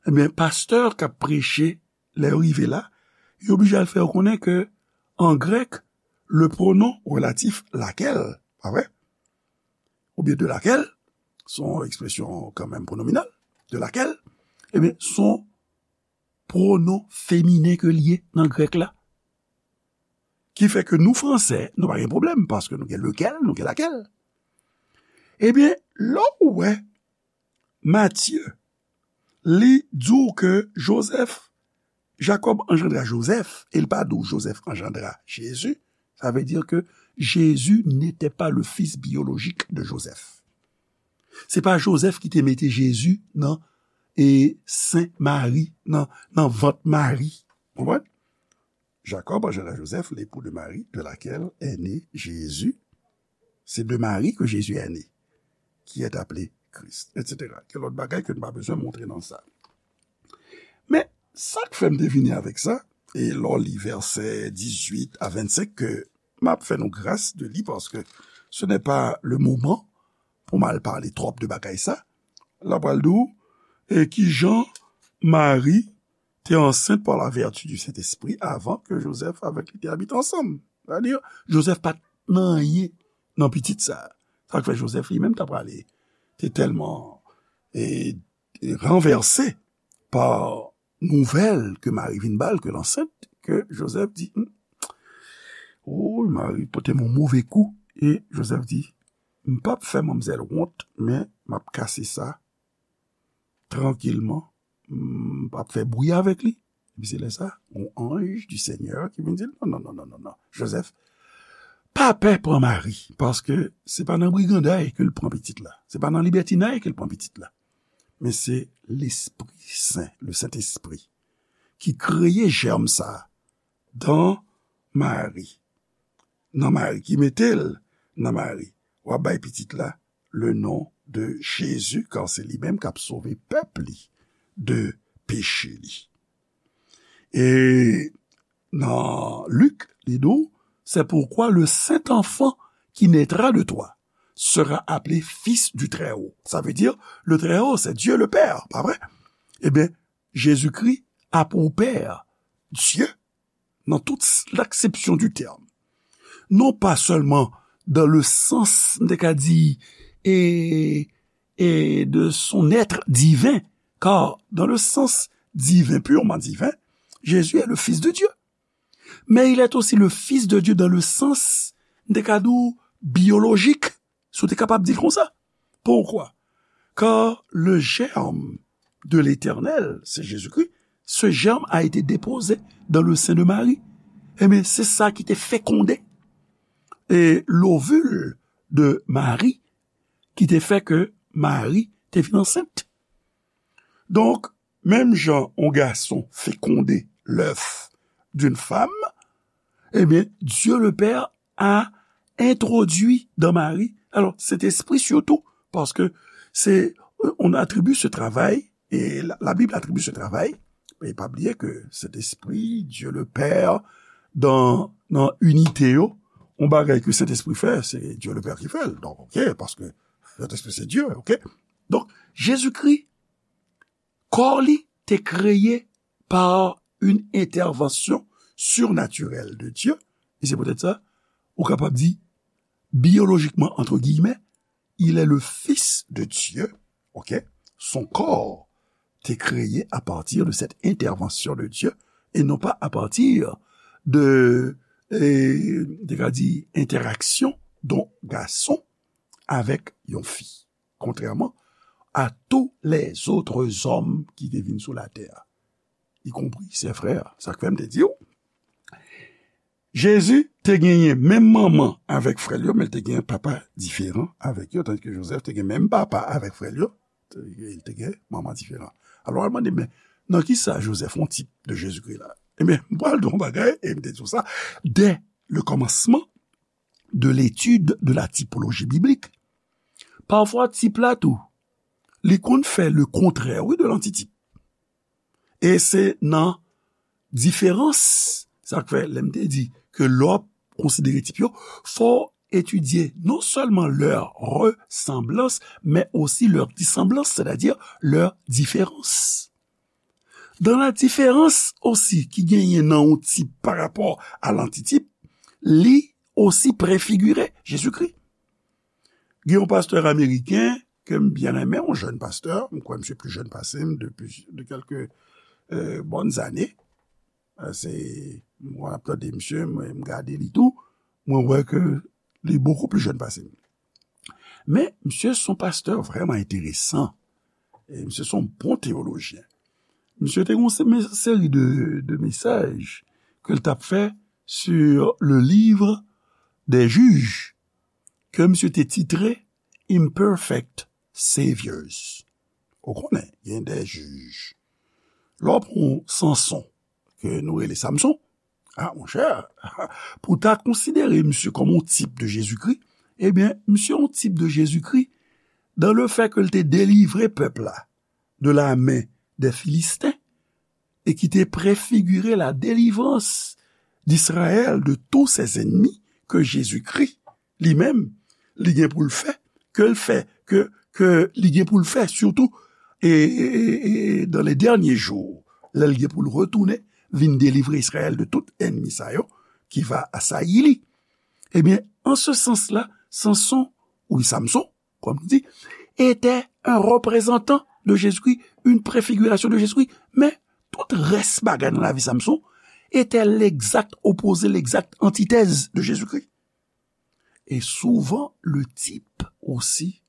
Ebyen, pastè k ap preche, lè yo rive la, yo oblije al fè yo konnen ke, an grèk, le pronom relatif laquelle, pa vre? Oubyen de laquelle, se yon ekspresyon kanmenm pwonominal, de laquelle, ebyen, se yon pwonon feminen ke l ye nan grèk la. Ki fè ke nou fransè, nou pa gen pwoblèm, paske nou gen lequel, nou gen laquelle. Ebyen, lè w wè Matye, li di w ke Jozèf, Jakòb anjandra Jozèf, e l pa di w Jozèf anjandra Jezi, sa vle di ke Jésus n'était pas le fils biologique de Joseph. Se pa Jozèf ki te mete Jezi nan, e, sen Mari, nan, nan vant Mari. Konprann? Jacob engendra Joseph, l'époux de Marie, de laquelle est né Jésus. C'est de Marie que Jésus est né, qui est appelé Christ, et cetera. Gen lòt bagay ke n pa bezwen montre nan sa. Men, sa k fè m te vini avèk sa, e lè w li vèsè dizuit a vennsenk, ke m ap fè nou gras de li, paske ce n'est pas le moment pou m al pale twòp de bagay sa, l ap pral di w, e kijan Mari te ansent par la vertu du Saint-Esprit avan ke Jozèf avèk li te abite ansanm. Sètadi, Jozèf pa t nan anyen nan pitit sa. Sa k fè Jozèf li menm ta prale, te tèlman e, e ranvèse pa nouvèl ke Mari vin ba l ke l ansent, ke Jozèf di, "Hmm, oh, Mari pote m yon move kou." E Jozèf di, "M p ap fè manmzèl wont, men m ap kase sa trankilman, m p ap fè bri avèk li." Epi se lè sa, yon anj du Seigneur ki vin di l, "Non, non, non, non, non, non. Jozèf, pa pè pran Mari, paske se pa nan briganday ke l pran pitit la. Se pa nan libètinay ke l pran pitit la. Men se Lespri Sen, le Sentespri, ki kreye jèm sa a dan Mari. Nan Mari, ki mete l nan Mari. W ap bay pitit la le non de Jezi, kar se li menm k ap sove pèp li de peche li." E nan Lik, li di w, "C'est pourquoi le saint enfant qui naîtra de toi sera appelé fils du Très-Haut." Sa vle di, le Très-Haut, c'est Dieu le Père, pa vre? Ebyen, Jezikri a pou Pè, Dye, nan tout s-, l'aksepsyon di tèm. Non pa sèlman dans le sens, m te ka di, e, e de son être divin, car dans le sens divin, purement divin, Jésus est le Fils de Dieu. Mais il est aussi le Fils de Dieu dans le sens, m te ka di w, biyolojik, si w te kapab di l konsa. Pourquoi? Car le germe de l'Éternel, c'est Jésus-Christ, ce germe a été déposé dans le sein de Marie. Ebyen, se sa ki te fekonde e lovil de Mari, ki te fè ke Mari te vin ansent. Donk, menm jan yon gason fekonde l'œuf d'une femme, ebyen, Dieu le Père a introduit dans Marie, alors, Saint-Esprit surtout, paske se, on attribue ce travail, et la, la Bible attribue ce travail, e pa bliye ke Sentespri, Dieu le Père, dans, dans unité yo, yon bagay ke Sentespri fè, se Dieu le Père ki fè l. Donk, ok, paske Sentespri se Dieu, ok? Donk, Jezikri, kò li te kreye par une intervention surnaturelle de Dieu, e se poutèt sa, ou kapab di, biyolojikman, entre guillemets, il est le Fils de Dieu, ok? Son corps te kreye à partir de cette intervention de Dieu, et non pas à partir de, e, te ka di, entèraksyon yon gason avèk yon fi, kontrèman a tous les autres hommes ki te vin sou latè, y compris ses frères. Sa k fè m te di w, Jezi te genyen menm manman avèk frè l yo, men l te genyen papa diferan avèk yo, tandis ke Jozèf te gen menm papa avèk frè l yo, te, li te gen manman diferan. Alò, w al mande, men nan ki sa Jozèf yon tip de Jezikri la? Ebyen, m pral di w yon bagay, e m te di w sa, dès le commencement de l'étude de la typologie biblique, pafwa tip la tou, li konn fè le kontrè, wi, de lantitip. E se nan diferans, sa k fè, lè m te di ke lè w ap konsidere tip yo, fò w etidye non sèlman leur ressemblance, mais aussi leur dissemblance, c'est-à-dire leur différence. Dans la différence aussi ki genyen nan yon tip pa rapò a lantitip, li osi prefigire Jezikri. Gen yon pastè ameriken ke m byen renmen, yon jèn pastè, m kwè misye pli jèn pase m depi de kèlke, euh, bòn zane. Euh, se, mwen ap tande misye, mwen, m gade li tou, mwen wè ke li bokou pli jèn pase m. Men, misye se yon pastè vrèman enteresan. E misye se yon bon teyolojyen. Misye te gen yon se-, me-, seri de, de mesaj ke l t ap fè sur le livre des Juges, ke misye te titre Imperfect Saviors. Ou konnen, gen de jij. Lè w pran Sanson, ke nou rele Samson, a, monchè, pou w ta konsidere misye kòm yon tip de Jezikri, ebyen, misye yon tip de Jezikri, dans le fait ke l te delivre pèp la de la main des Philistins, e ki te prefigire la délivrance d'Israël de tous ses ennemis, ke Jezikri, li menm, li gen pou l fè, ke l fè, ke, ke li gen pou l fè, sitou, e, e, e, e dans les derniers jours, lè l gen pou l retounen, vin delivre Izrayèl de tout ènmi sa yo ki va asayi li. Ebyen, an se sans la, Sanson, ou Samson, kòm nou di, était un représentant de Jésus-Christ, une préfiguration de Jésus-Christ. Men, tout rès bagay nan lavi Samson était l'exact opposé, l'exact antithèse de Jésus-Christ. Et souvent, le type aussi,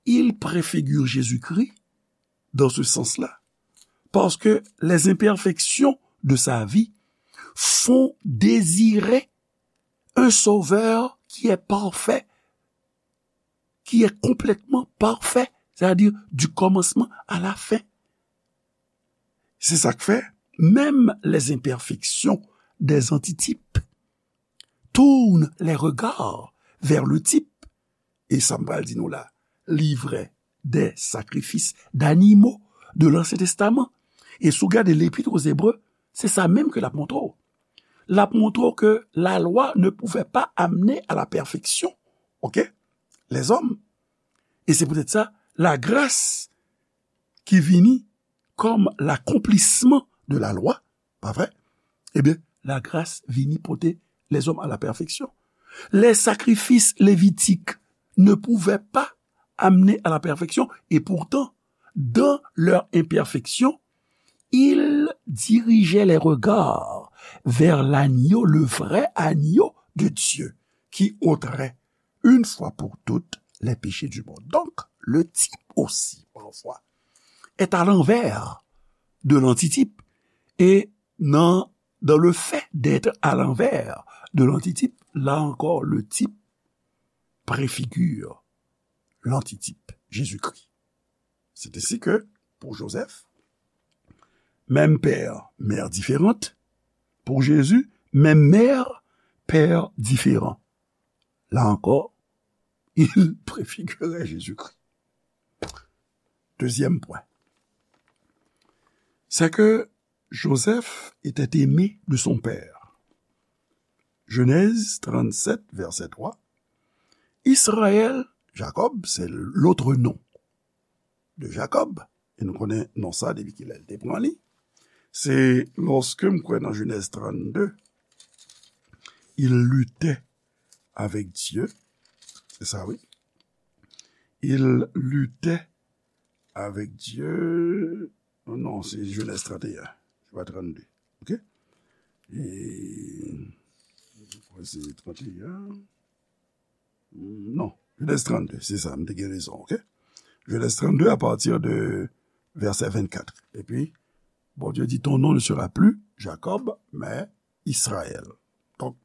il préfigure Jésus-Christ dans ce sens-là. Parce que les imperfections de sa vie font désirer un sauveur qui est parfait, qui est complètement parfait, c'est-à-dire du commencement à la fin. C'est ça qui fait, même les imperfections des antitypes tournent les regards vers le type. E sa m pral di nou la, livret des sacrifices d'animaux de l'Ancien Testament. E si w gade l'Épître aux Hébreux, se sa menm ke l ap montre w. L ap montre w ke la loi ne pouvait pas amener à la perfection, ok, les hommes. E se poutèt sa, la grâce ki vini comme l'accomplissement de la loi, pa vre? Ebyen, la grâce vini pote les hommes à la perfection. Les sacrifices lévitiques ne pouvaient pas amener à la perfection, et pourtant, dans leur imperfection, ils dirigeaient les regards vers l'agneau, le vrai agneau de Dieu, qui ôterait une fois pour toutes les péchés du monde. Donc, le type aussi, parfois, est à l'envers de l'antitype. Et dans, dans le fait d'être à l'envers de l'antitype, là encore, le type préfigure l'antitype, Jésus-Christ. C'est ainsi que, pour Joseph, même père, mère différente. Pour Jésus, même mère, père différent. Là encore, il préfigurait Jésus-Christ. Deuxième point, c'est que Joseph était aimé de son père. Genèse trente-sept, verset trois. Israël, Jacob, c'est l'autre nom de Jacob. E nou konnen non sa depi kilè l te pran li. Se lòske m kwè nan Genèse trente-deux, il luttait avec Dieu. C'est ça, oui. Il luttait avec Dieu. Non, non, c'est Genèse trente et un. C'est pas trente-deux. Ok? Et, je crois que c'est trente et un. Non, Genèse trente-deux, c'est ça, m te gen rezon, ok? Genèse trente-deux à partir de verset vingt-quatre. Epi, Bondye di, ton nom ne sera plus Jacob, mais Israël. Donk,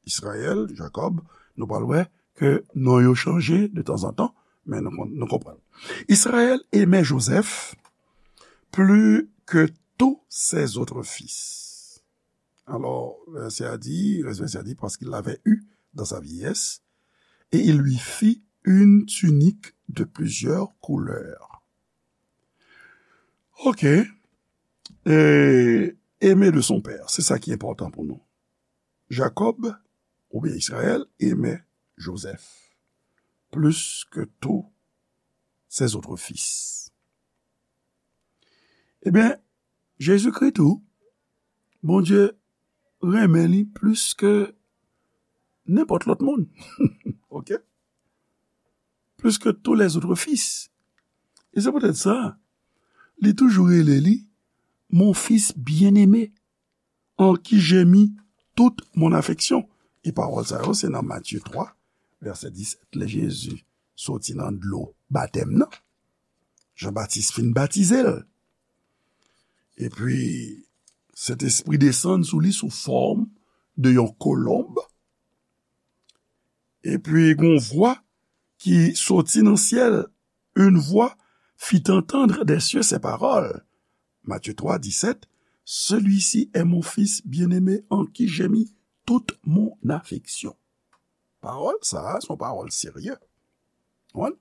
Israël, Jacob, nou pral wè ke non yo chanje de tanzantan, men nou kon-, nou konprann. Israël aimait Joseph plus que tous ses autres fils. Alors, verset a dit, verset a dit, parce qu'il l'avait eu dans sa vieillesse, et il lui fit une tunique de plusieurs couleurs. Ok. Et aimé de son père, c'est ça qui est important pour nous. Jacob, oubyen Israël, aimait Joseph plus que tous ses autres fils. Ebyen, Jezikri tou, Bondye renmen li plis ke nenpòt lòt moun. Ok? Plus que tous les autres fils. E se poutèt sa, li toujou rele li mon fils bien-aimé, en qui j'ai mis toute mon affection. E pawòl sa yo, se nan Matye twa, vèsè disèt, lè Jezi soti nan dlo batèm nan. Jan Batis fin batize l. Epi, Sentespri desann sou li sou fòm de yon kolonb. Epi, gon vwa ki soti nan syèl. Une voix fit entendre des cieux ces paroles. Matthieu trois, dix-sept, celui-ci est mon fils bien-aimé en qui j'ai mis toute mon affection. Pawòl sa a, se yon pawòl serye. Konprann?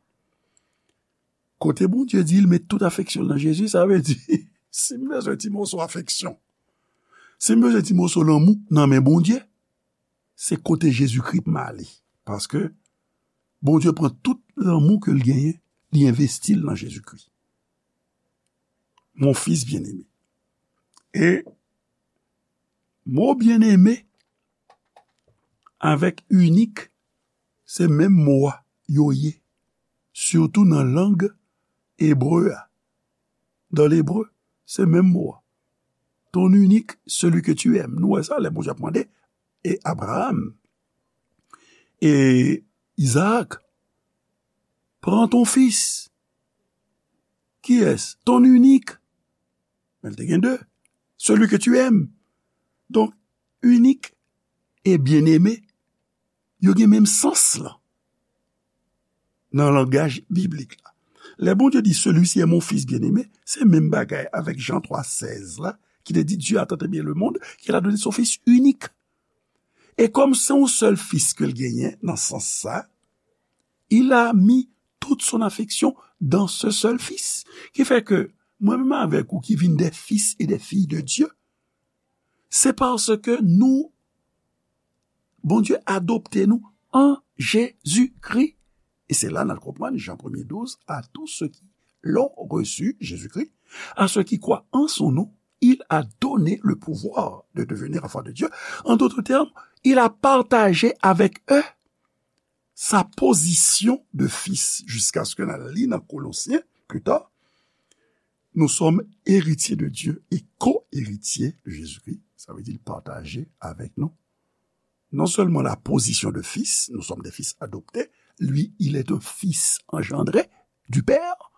Kote Bondye di l met tout afeksyon l nan Jezi, sa vle di, si m bezwen ti moso afeksyon, si m bezwen ti moso lanmou nan men Bondye, se kote Jezikri m ale. Paske Bondye pran tout lanmou ke l genyen, li envesti l nan Jezikri. Mon fils bien-aimé. E mo byeneme avèk inik, se menm mo a yo ye, sitou nan lang ebre a. Dans l'hébreu, se menm mo a. Ton unique, celui que tu aimes. Nou wè sa lè Bondye ap mande, e Abraham, e Izaak, pran ton fis. Kiyès? Ton unique. Men l te gen de. Celui que tu aimes. Donk, unique e bien-aimé, yo gen menm sans lan nan langaj biblik la. Lè Bondye di, celui-ci est mon fils bien-aimé, se menm bagay avèk Jan twa sèz la, ki te di, Dieu a tant aimé le monde qu'il a donné son fils unique. E kòm se yon sèl fis ke l genyen nan sans sa, il a mis toute son affection dans ce seul fils. Ki fè ke mwen menm avèk ou ki vin des fils et des filles de Dieu, se paske nou, Bondye adopte nou an Jezikri. E se la n al konprann Jan premye douz, à tous ceux qui l'ont reçu, Jésus-Christ, à ceux qui croient en son nom, il a donné le pouvoir de devenir enfants de Dieu. En d'autres termes, il a partagé avec eux sa position de fils, jusqu'à ce que n al li nan Kolosyen, plus tard, nous sommes héritiers de Dieu et co-héritiers de Jésus-Christ. Sa vle di l pataje avèk nou non seulement la position de fils, nous sommes des fils adoptés, lui, il est un fils engendré du Père,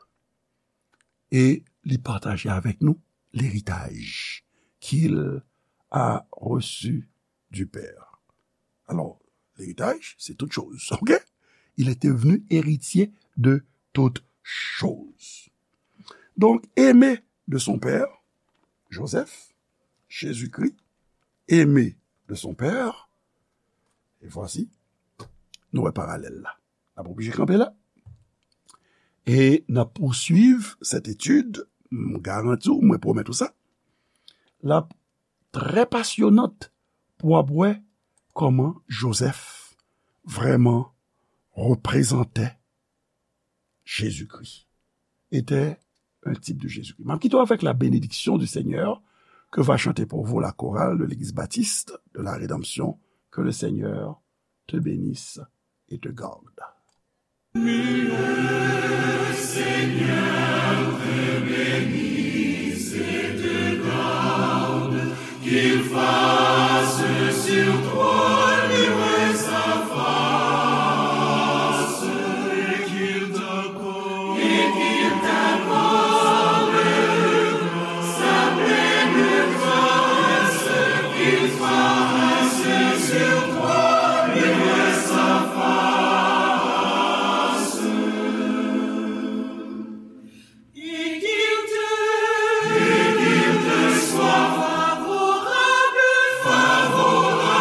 e li pataje avèk nou l'héritage qu'il a reçu du Père. Alors, l'héritage, c'est toute chose, ok? Il était venu héritier de toutes choses. Donc, aimé de son père, Joseph, Jésus-Christ, aimé de son père, et voici, nou wè paralèl la. N ap oblije kanpe la. E n ap pouswiv cette étude, m garanti w, mwen pwomèt ou sa. L ap trè pasyonant pou w ap wè kòman Joseph vrèman reprezante Jésus-Christ, était un type de Jésus-Christ. M ap kite w avec la bénédiction du Seigneur que va chanter pour vous la chorale de l'Église baptiste de la Rédemption. Que le Seigneur te bénisse et te garde. Qu'il fasse sur toi luire sa face et qu'il t'accorde, et qu'il t'accorde sa pleine grâce, qu'il fasse sur toi luire sa face. Et qu'il te, et qu'il te soit favorable, favorable.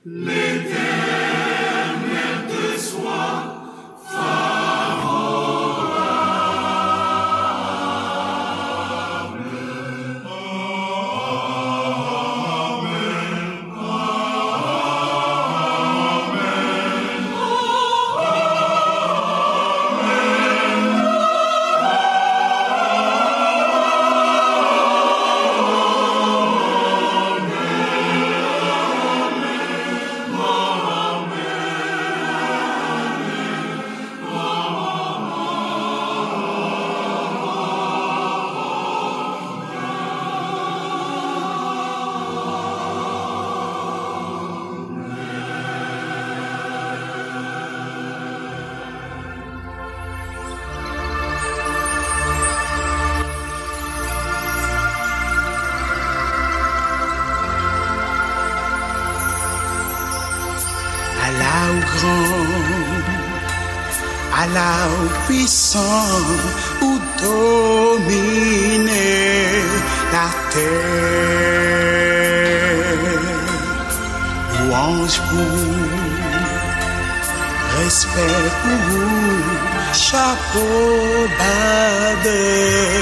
L'Éternel te soit favorable. Amen. Ala ou gran, ala ou pwisan, ou domine latè. Lwanj pou ou, respè pou ou, chapo ba bèl.